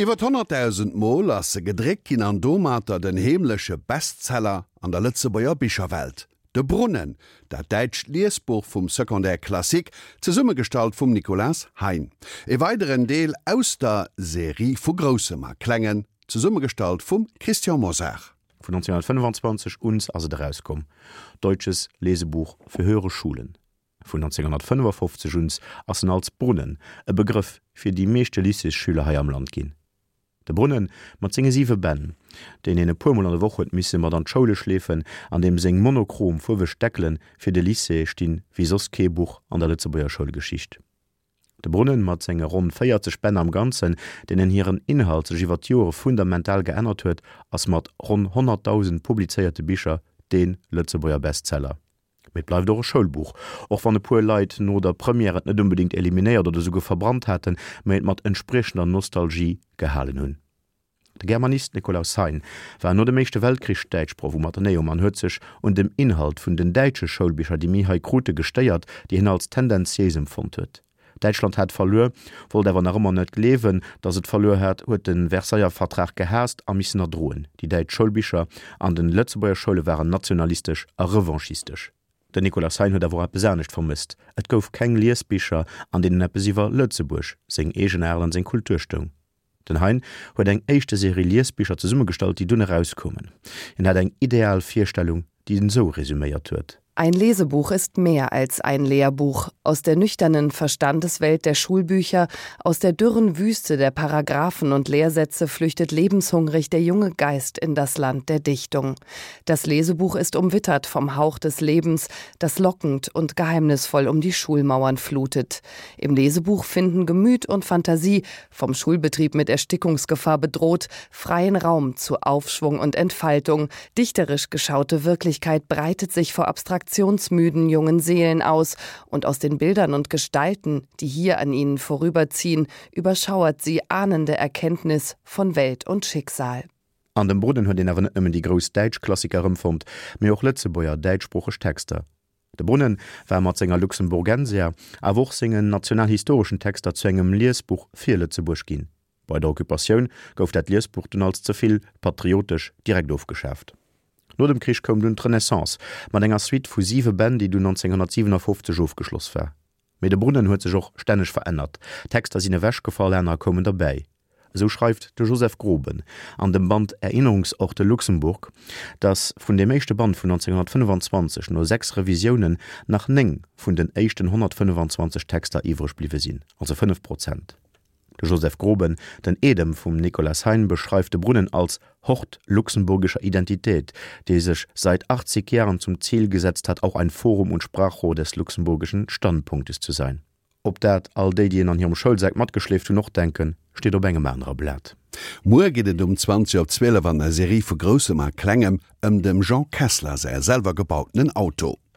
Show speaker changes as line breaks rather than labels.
Iwwer 100.000 Mol ass se gedréckt ginn an domatter den heemleche Bestseller an der Lëtzebuerger Bicherwelt. De Brunnen, dat däitscht Liesbuch vum Secondaire classique, zesummegestallt vum Nicolas Hein. E weideren Deel aus der Serie vu Groussem a Klengen, zesummegestallt vum Christian Mosar.
Vun 1925 uns ass et erauskomm, Deutsches Lesebuch für höhere Schulen. Vun 1955 uns ass en als Brunnen e Begrëff fir déi meeschte Lycéesschüler hei am Land ginn. De Brunnen mat senge siwe Bänn, deen een e puermol an der Woch huet misse mat an d'Schoule schleefen an deem seng monochrom fuerweg Deckele fir de Lycée stinn wéi soss kee Buch an der Lëtzebuerger Schoulgeschicht. De Brunnen mat senge ronn 40 Bänn am Ganzen, deenen hiren Inhalt sech iwwer d'Joere fundamental geännert huet, ass mat ronn 100.000 publizéierte Bicher dee Lëtzebuerger Bestseller. Mee et bleift och e Schoulbuch, och wann e puer Leit no der Première et net onbedéngt eliminéiert oder esouguer verbrannt haten, mee et mat entspriechender Nostalgie gehalen hunn. De Germanist Nikolaus Hein war no dem Éischte Weltkrich Däitschproff um Atheneum an huet sech un dem Inhalt vun den däitsche Schoulbicher, déi mir hei krute, gestéiert, déi hien als tendenziéis empfonnt huet. Däitschland hat verluer, wollt awer nach ëmmer net gleewen, datt et verluer hat, huet de Versailler Vertrag gehaasst a missen erdroen. Déi däitsch Schoulbicher an den Lëtzebuerger Schoule waren nationalistesch a revanchistesch. Den Nicolas Hein huet awer och eppes anescht vermësst, Et gouf keng Liesbicher, an deenen eppes iwwer Lëtzebuerg, seng Eegenaart an seng Kultur stoung. Den Hein huet eng éischte Serie Liesbicher zesummegestallt, déi dunn erauskoumen. Hien hat eng ideal Virstellung, déi en esou resuméiert huet.
Ein Lesebuch ist mehr als ein Lehrbuch. Aus der nüchternen Verstandeswelt der Schulbücher, aus der dürren Wüste der Paragraphen und Lehrsätze flüchtet lebenshungrig der junge Geist in das Land der Dichtung. Das Lesebuch ist umwittert vom Hauch des Lebens, das lockend und geheimnisvoll um die Schulmauern flutet. Im Lesebuch finden Gemüt und Fantasie, vom Schulbetrieb mit Erstickungsgefahr bedroht, freien Raum zu Aufschwung und Entfaltung. Dichterisch geschaute Wirklichkeit breitet sich vor abstraktionsmüden jungen Seelen aus und aus den Bildern und Gestalten, die hier an ihnen vorüberziehen, überschauert sie ahnende Erkenntnis von Welt und Schicksal.
An dem Brunnen huet een awer net nëmmen déi grouss däitsch Klassiker erëmfonnt, mee och Lëtzebuerger däitschsproocheg Texter. De Brunnen war mat senger Luxemburgensia, awer och sengen nationalhistoreschen Texter zu engem Liesbuch fir Lëtzebuerg ginn. Bei der Occupatioun gouf dat Liesbuch dunn als ze vill patriotesch direkt ofgeschaaft. No dem Krich koum dunn d'Renaissance mat enger Suite vu siwe Bänn, déi dunn 1957 ofgeschloss war. Mee de Brunnen huet sech och stänneg verännert, Texter sinn ewechgefall, anerer koumen derbäi. Esou schreift de Joseph Groben an dem Band Erinnerungsorte Luxemburg, datt vun deem éischte Band vun 1925 no 6 Revisiounen nach 9 vun den éischten 125 Texter iwwreg bliwwe sinn, also 5 Prozent. De Joseph Groben, den Eedem vum Nicolas Hein, beschreift de Brunnen als Hort luxemburgischer Identität, der sich seit 80 Jahren zum Ziel gesetzt hat, auch ein Forum und Sprachrohr des luxemburgischen Standpunktes zu sein. Ob dat all déi, déi en an hirem Schoulsak matgeschleeft hunn, och denken, steet op engem anere Blat.
Muer geet et um 20 op 12 an der Serie vu Groussem a Klengem ëm dem Jean Kessler säi selwer gebautenen Auto.